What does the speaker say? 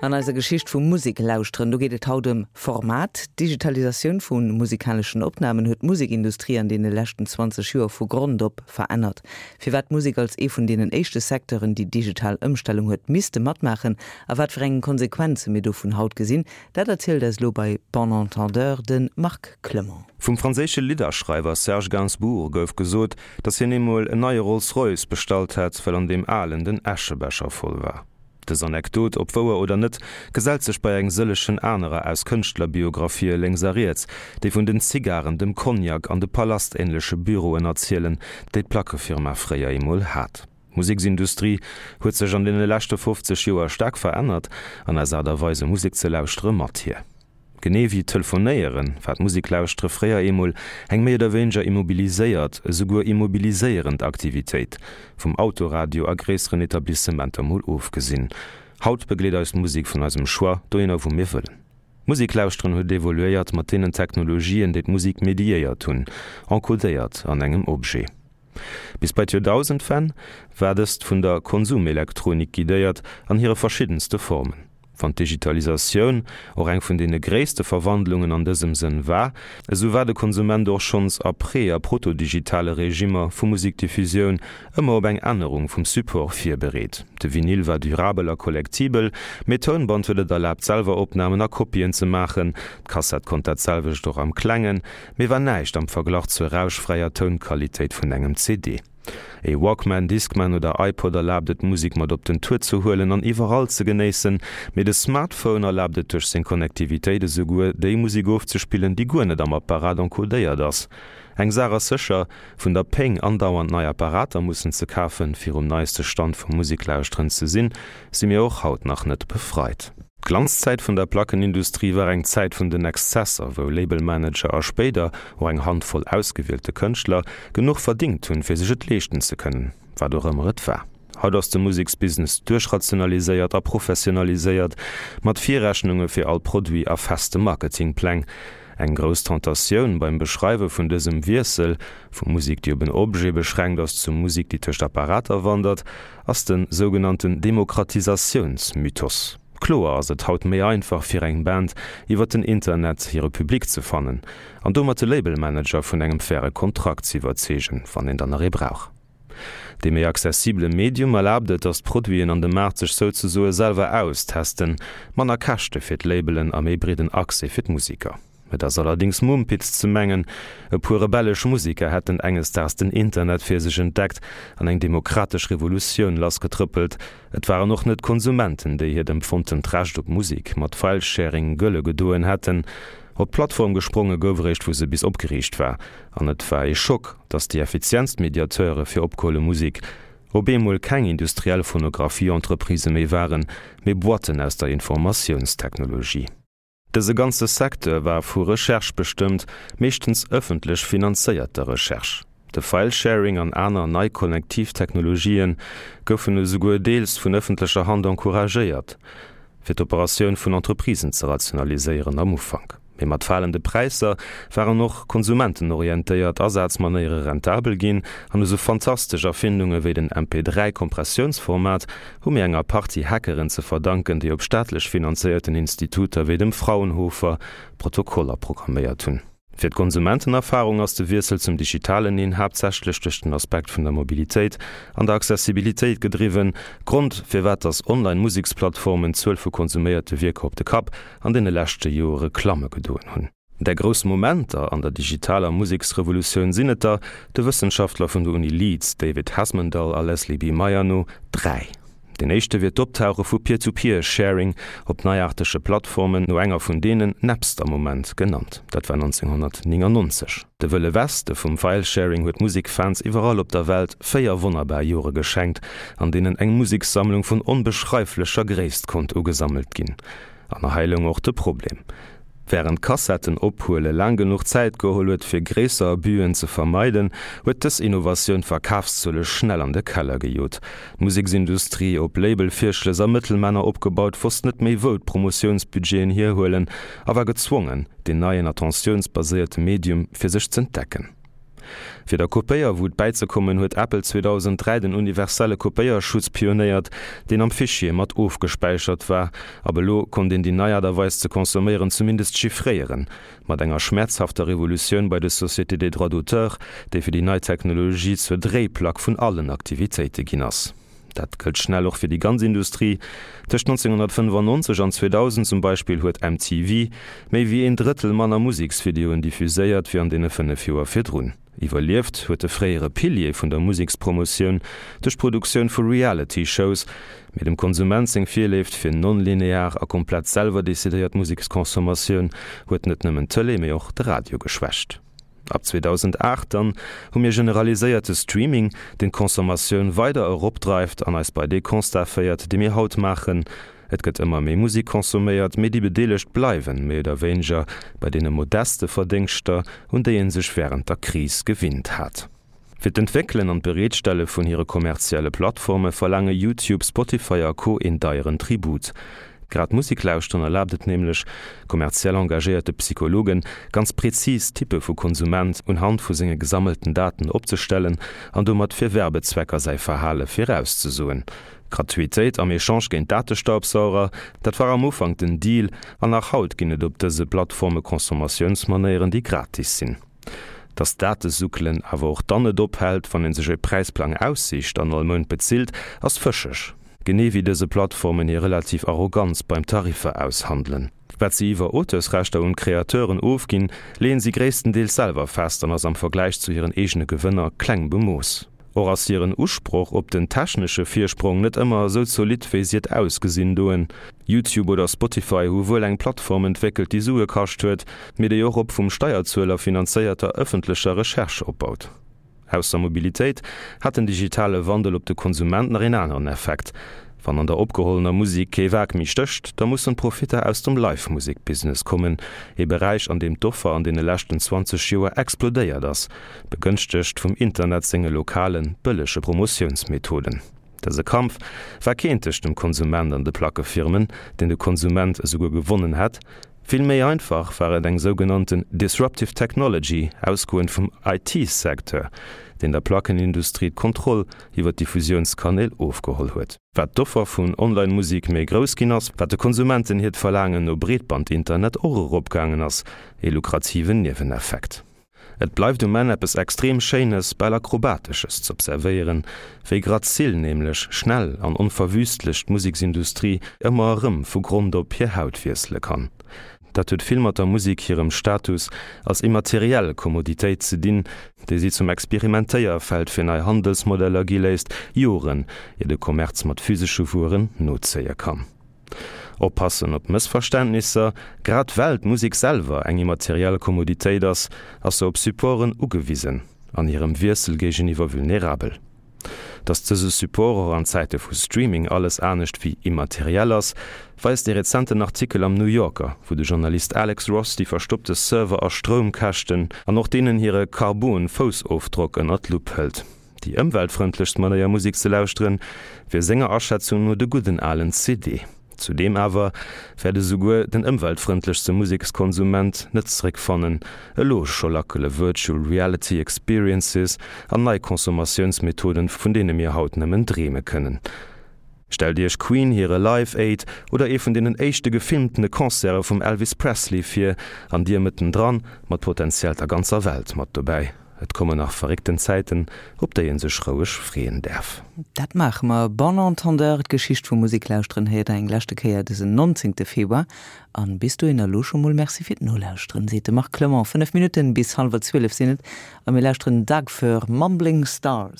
An eiser Geschicht vum Museklauschteren, do geet et haut ëm Format. D'Digitalisatioun vu musikaleschen Opnamen huet d'Musekindustrie an deene leschten 20 Joer vu Grond op verännert. Firwat d'Musek als ee vun deenen éischte Secteuren déi digital Ëmstellung huet misste matmaachen a wat fir eng Konsequenze mir dovun haut gesinn, dat erzielt eis elo bei Bon Entendeur de Marc Clement. Vum franséische Lidderschreiwer Serge Gainsbourg gouf gesot, datt hien eemol en neie Rolls-Royce bestallt hätt, well an deem alen den Äschebecher voll war. Dës Anekdot, ob wouer oder net, gesellt sech bei eng sëllechen anerer aus Kënschtlerbiographië lénks a riets, déi vun den Zigaren, dem Cognac an de palastähnleche Büroen erzielen, déi d'Plackefirma fréier eemol hat. D'Museksindustrie huet sech an deene leschte 50 Joer staark verännert, an eis Aart a Weise Musek ze lauschtere mat hir. Genee wéi Telefonéieren, war d'Museklauschtere fréier eemol eng méi oder wéineger immobiliséiert, esouguer immobiliséierend Aktivitéit, vum Autoradio a gréisseren Etablissementer mol ofgesinn. Haut begleet eis d'Musek vun eisem Choix dohinner wou mir wëllen. D'Museklauschteren huet evoluéiert mat deenen Technologien, déi d'Musek mediéiert hunn, encodéiert an engem Objet. Bis bei d'Joerdausendwenn war dëst vun der Konsumelektronik guidéiert an hire verschiddenste Formen. Wann d'Digitalisatioun och eng vun deene gréisste Verwandlungen an dësem Sënn war, esou war de Konsument och schonns a pre a protodigitale Regimmer vu Musikdiffusioun ëmmer op eng Ännerung vum Support virbereet. De Vinyl war durabel a kollektibel, mee d'Tounband huet et erlaabt selwer Opnamen a Kopien ze maachen. D'Kassett konnt dat selwecht och am Klengen, mee war näischt am Verglach zur rauschfräier Tounqualitéit vun engem CD. E Walkman, Discman oder iPod erlaabt et Musek mat op den Tour ze huelen an iwwerall ze genéissen, mee de Smartphone erlaabt et duerch seng Connectivitéit esouguer déi Musek ofzespillen, déi guer net am Apparat encodéiert ass. Eng Saach ass sécher, vun der Péng andauernd nei Apparater mussen ze kafen, fir um neiste Stand vum Museklauschteren ze sinn, si mir och haut nach net befreit. D'Glanzzäit vun der Plackenindustrie war eng Zäit vun den Exzesser, wou Labelmanager a spéider och eng Handvoll ausgewielte Kënschtler genuch verdingt hunn, fir sech et leeschten ze kënnen, wat och ëmmer et war. Haut ass de Museksbusiness duerchrationaliséiert a professionaliséiert, mat Virrechnunge fir all Produit a feste Marketingpläng. Eng grouss Tentatioun beim Beschreiwe vun dësem Wiessel, vu Musek, déi op en Objet beschränkt ass, zu Musek, déi tëscht Apparater wandert, ass de sougenannten Demokratisatiounsmythos. Kloer ass et haut méi einfach fir eng Band iwwer den Internet hire Public ze fannen an domat de Labelmanager vun engem faire Kontrakt ze iwwerzeegen, wann een dann nach ee brauch. Dee méi accessibele Medium erlaabt et, datt d'Produiten an de Maart sech souzesoe selwer austesten, manner Käschte fir d'Labelen a méi breeden Accès fir d'Museker. Et ass allerdings Mumpitz ze mengen, e puer rebellesch Musiker hätten enges Daags den Internet fir sech entdeckt an eng demokratesch Revolutioun lassgetrëppelt. Et waren och net d'Konsumenten, déi hiert empfonntent Recht op Musik mat Filesharing gëlle gedoen hätten. Op d'Plattform gespronge gouf eréischt wou se bis opgeriicht war. An et war ee Schock, datt déi effizientst Mediateure fir opgeholle Musik op eemol keng industriell Phonographie-Entreprisë méi waren, mee Boîten aus der Informatiounstechnologie. Dëse ganze Secteur war vu Recherche bestëmmt, meeschtens ëffentlech finanzéierter Recherche. De Filesharing an aner nei konnektiv Technologië goufen esouguer deels vun ëffentlecher Hand encouragéiert, fir d'Operatioun vun Entreprisen ze rationaliséieren am Ufank. Mee mat falende Präisser waren och konsumentenorientéiert Asazmanéiere rentabel ginn an esou fantastesch Erfindunge wéi den MP3-Kompressiounsformat hu mir enger Partie Hackeren ze verdanken, déi op staatlech finanzéierten Instituter wéi dem Fraunhofer Protokoller programméiert hunn. Fir d'Konsumentenerfarung ass de Wiessel zum digitalen een haaptsächlech duerch den Aspekt vun der Mobilitéit an der Accessibilitéit gedriwwen Grond, firwat dass Online-Museksplattformen d'Zuel vu konsuméierte Wierker op de Kapp an deene leschte Joere klamme gedoen hunn. Där grouss Momenter an der digitaler Museksrevolutioun sinn et der, de Wëssenschaftler vun der Uni Leeds David Hesmondhalgh a Leslie B. Meyer no, dräi. Deen éischte wier d'Optauche vu Peer-to-Peer-Sharing op neiaartege Plattformen, no enger vun deenen Napster Moment genannt. Dat war 1999. De Wëlle Weste vum Filesharing huet Musekfans iwwerall op der Welt 4 wonnerbar Jore geschenkt, an deenen eng Musekssammlung vun onbeschreiflecher Gréisst konnt ugesammelt ginn. An hei loung och de Problem. Wärend Kassetten ophuele laang genuch Zäit geholl huet fir gréisser Abusen ze vermeiden, huet dës Innovatioun d'Verkafszuele schnell an de Keller gejot. D'Museksindustrie, op Label-Virschlëss a Mëttelmänner opgebaut, wosst net méi wou d'Promotiounsbudgeten hierhuelen a war gezwongen, deen neien attentiounsbaséierte Medium fir sech z'entdecken. Fir der Kopéierwut bäizekommen, huet Apple 2003 den universelle Kopéierschutz pionéiert, deen am Fichier mat ofgespäichert war. Ab elo konnt een déi nei Aart a Weis ze consomméieren zumindest chiffréieren. Mat enger schmäerzhafter Revolutioun bei de Sociétés des droits d'auteur, déi fir déi nei Technologie zur Dréiplack vun allen Aktivitéite ginn ass. Dat gëllt schnell och fir déi ganz Industrie. Tëscht 1995 an 2000 zum Beispill huet MTV méi wéi een Drëttel manner Museksvideoen diffuséiert wéi an deene 5 Joer virdrun. Iwwerlieft huet de fréiere Pilier vun der Musekspromotioun duerch d'Produktioun vu Reality-Shows, mee dem Konsument seng Virléift fir non-linear a komplett selwer decidéiert Museksconsommatioun huet net nëmmen d'Tëlee, mee och de Radio geschwächt. Ab 2008 dann hu mir generaliséierte Streaming, deen d'Consommatioun weider eropdreift an eis bei dee Constat féiert, dee mir haut maachen, Et gëtt ëmmer méi Musek consomméiert, mee déi Bedeelegt bleiwen, méi oder wéineger, bei deene modeste Verdéngschter, un déi ee sech wärend der Kris gewinnt hat. Fir d'Entwéckelen an d'Bereetstelle vun hire kommerzielle Plattforme verlaange YouTube, Spotify a Co. Een deieren Tribut. Grad Musek lauschteren erlaabt et nämlech kommerziell engagéierte Psychologen, ganz prezis Typpe vu Konsument unhand vu senge gesammelten Daten opzestellen an domat fir Werbezwecker säi Verhale virauszesoen. Gratuitéit am Echange géint Datestaubsauger, dat war am Ufank den Deal an nach haut ginn et op dëse Plattforme Consommatiounsmanéieren, déi gratis sinn. Dass d'Datesuckelen awer och dann net ophält, wann ee sech e Präisplang aussicht an all Mount bezilt, ass fëscheg. Genee wéi dëse Plattformen hir relativ Arroganz beim Tariffer aushandelen. Wat si iwwer Auteursrechter un d'Createuren ofginn, leeën si gréisstendeels selwer fest an ass am Vergläich zu hiren eegene Gewënner kleng bemooss. Och ass hiren Usproch op den technesche Virsprong net ëmmer esou zolidd wéi si et ausgesinn doen. YouTube oder Spotify hu wuel eng Plattform entwéckelt déi Sue kascht huet, mee déi och op vum Steierzueler finanzéierter ëffentlecher Recherche opbaut. Ausser Mobilitéit hat den digitale Wandel op de Konsument nach een aneren Effekt, Wann an der opgehollener Musek kee Waark méi stécht, da mussen d'Profitter aus dem Live-Musek-Business kommen, ee Beräich an deem d'Offer an deene leschten 20 Joer explodéiert ass, begënschtegt vum Internet senge lokalen, bëllege Promotiounsmethoden. Dëse Kampf war keen tëscht dem Konsument an de Plackefirmen, deen de Konsument esouguer gewonnen hätt. Vill méi einfach war et eng sougenannten disruptive technology, ausgoend vum IT-Secteur, deen der Plackenindustrie d'Kontroll iwwer d'Diffusiounskanäl ofgeholl huet. Wat d'Offer vun Online-Musik méi grouss ginn ass, wat de Konsumenten hiert Verlaangen no Breetband-Internet och eropgaangen ass, ee lukrativen Nieweneffekt. Et bleift um Enn eppes extrem Schéines, bal Akrobatesches z'observéieren, wéi grazil nämlech, schnell an onverwüstlech d'Museksindustrie ëmmer erëm vu Grond op hir Haut wiessele kann. Dat huet vill mat der Musek hirem Status als immateriell Kommoditéit ze dinn, déi si zum Experimentéierfeld fir nei Handelsmodeller gi léisst, Joren ier de Kommerz mat physesche Wueren nozéie kann. Oppassen op Mëssverständnisser, Grad well d'Musek selwer eng immateriell Kommoditéit ass, ass se op Supporten ugewisen, an hirem Wiessel géigeniwwer vulnerabel. Datt dëse Support och an Zäite vu Streaming alles anescht wéi immateriell ass, weist ee rezenten Artikel am New Yorker, wou de Journalist Alex Ross déi verstoppte Server a Stroumkäschten an och deenen hire Karbon-Foussofdrock ënner d'Lupp hëlt. Déi ëmweltfrëndlechst Manéier Musek ze lauschteren, wier senger Aschätzung no de gudden alen CD. Zudeem awer wäert esouguer den ëmweltfrëndlechste Musekskonsument net zeréckfannen. Elo scho lackele Virtual Reality Experiences an nei Consommatiounsmethoden, vun deene mir haut nëmmen dreeme kënnen. Stellt Iech Queen hire Live Aid oder ee vun deenen éischte gefilmtene Concerte vum Elvis Presley vir, an dir mëttendran, mat potenziell der ganzer Welt mat dobäi. Et kommen nach verréckten Zäiten, op déi een sech roueg freeën däerf. Dat maache mer. Bon entendeur, d'Geschicht vum Museklauschteren héiert der eng leschte Kéier dësen 19. Februar. An bis dohinner elo scho mol Merci fir d'Nolauschteren, seet de Marc Clement. 5 Minutten bis hallwer 12 sinn et a mir lauschteren Doug Fir Mumbling Stars.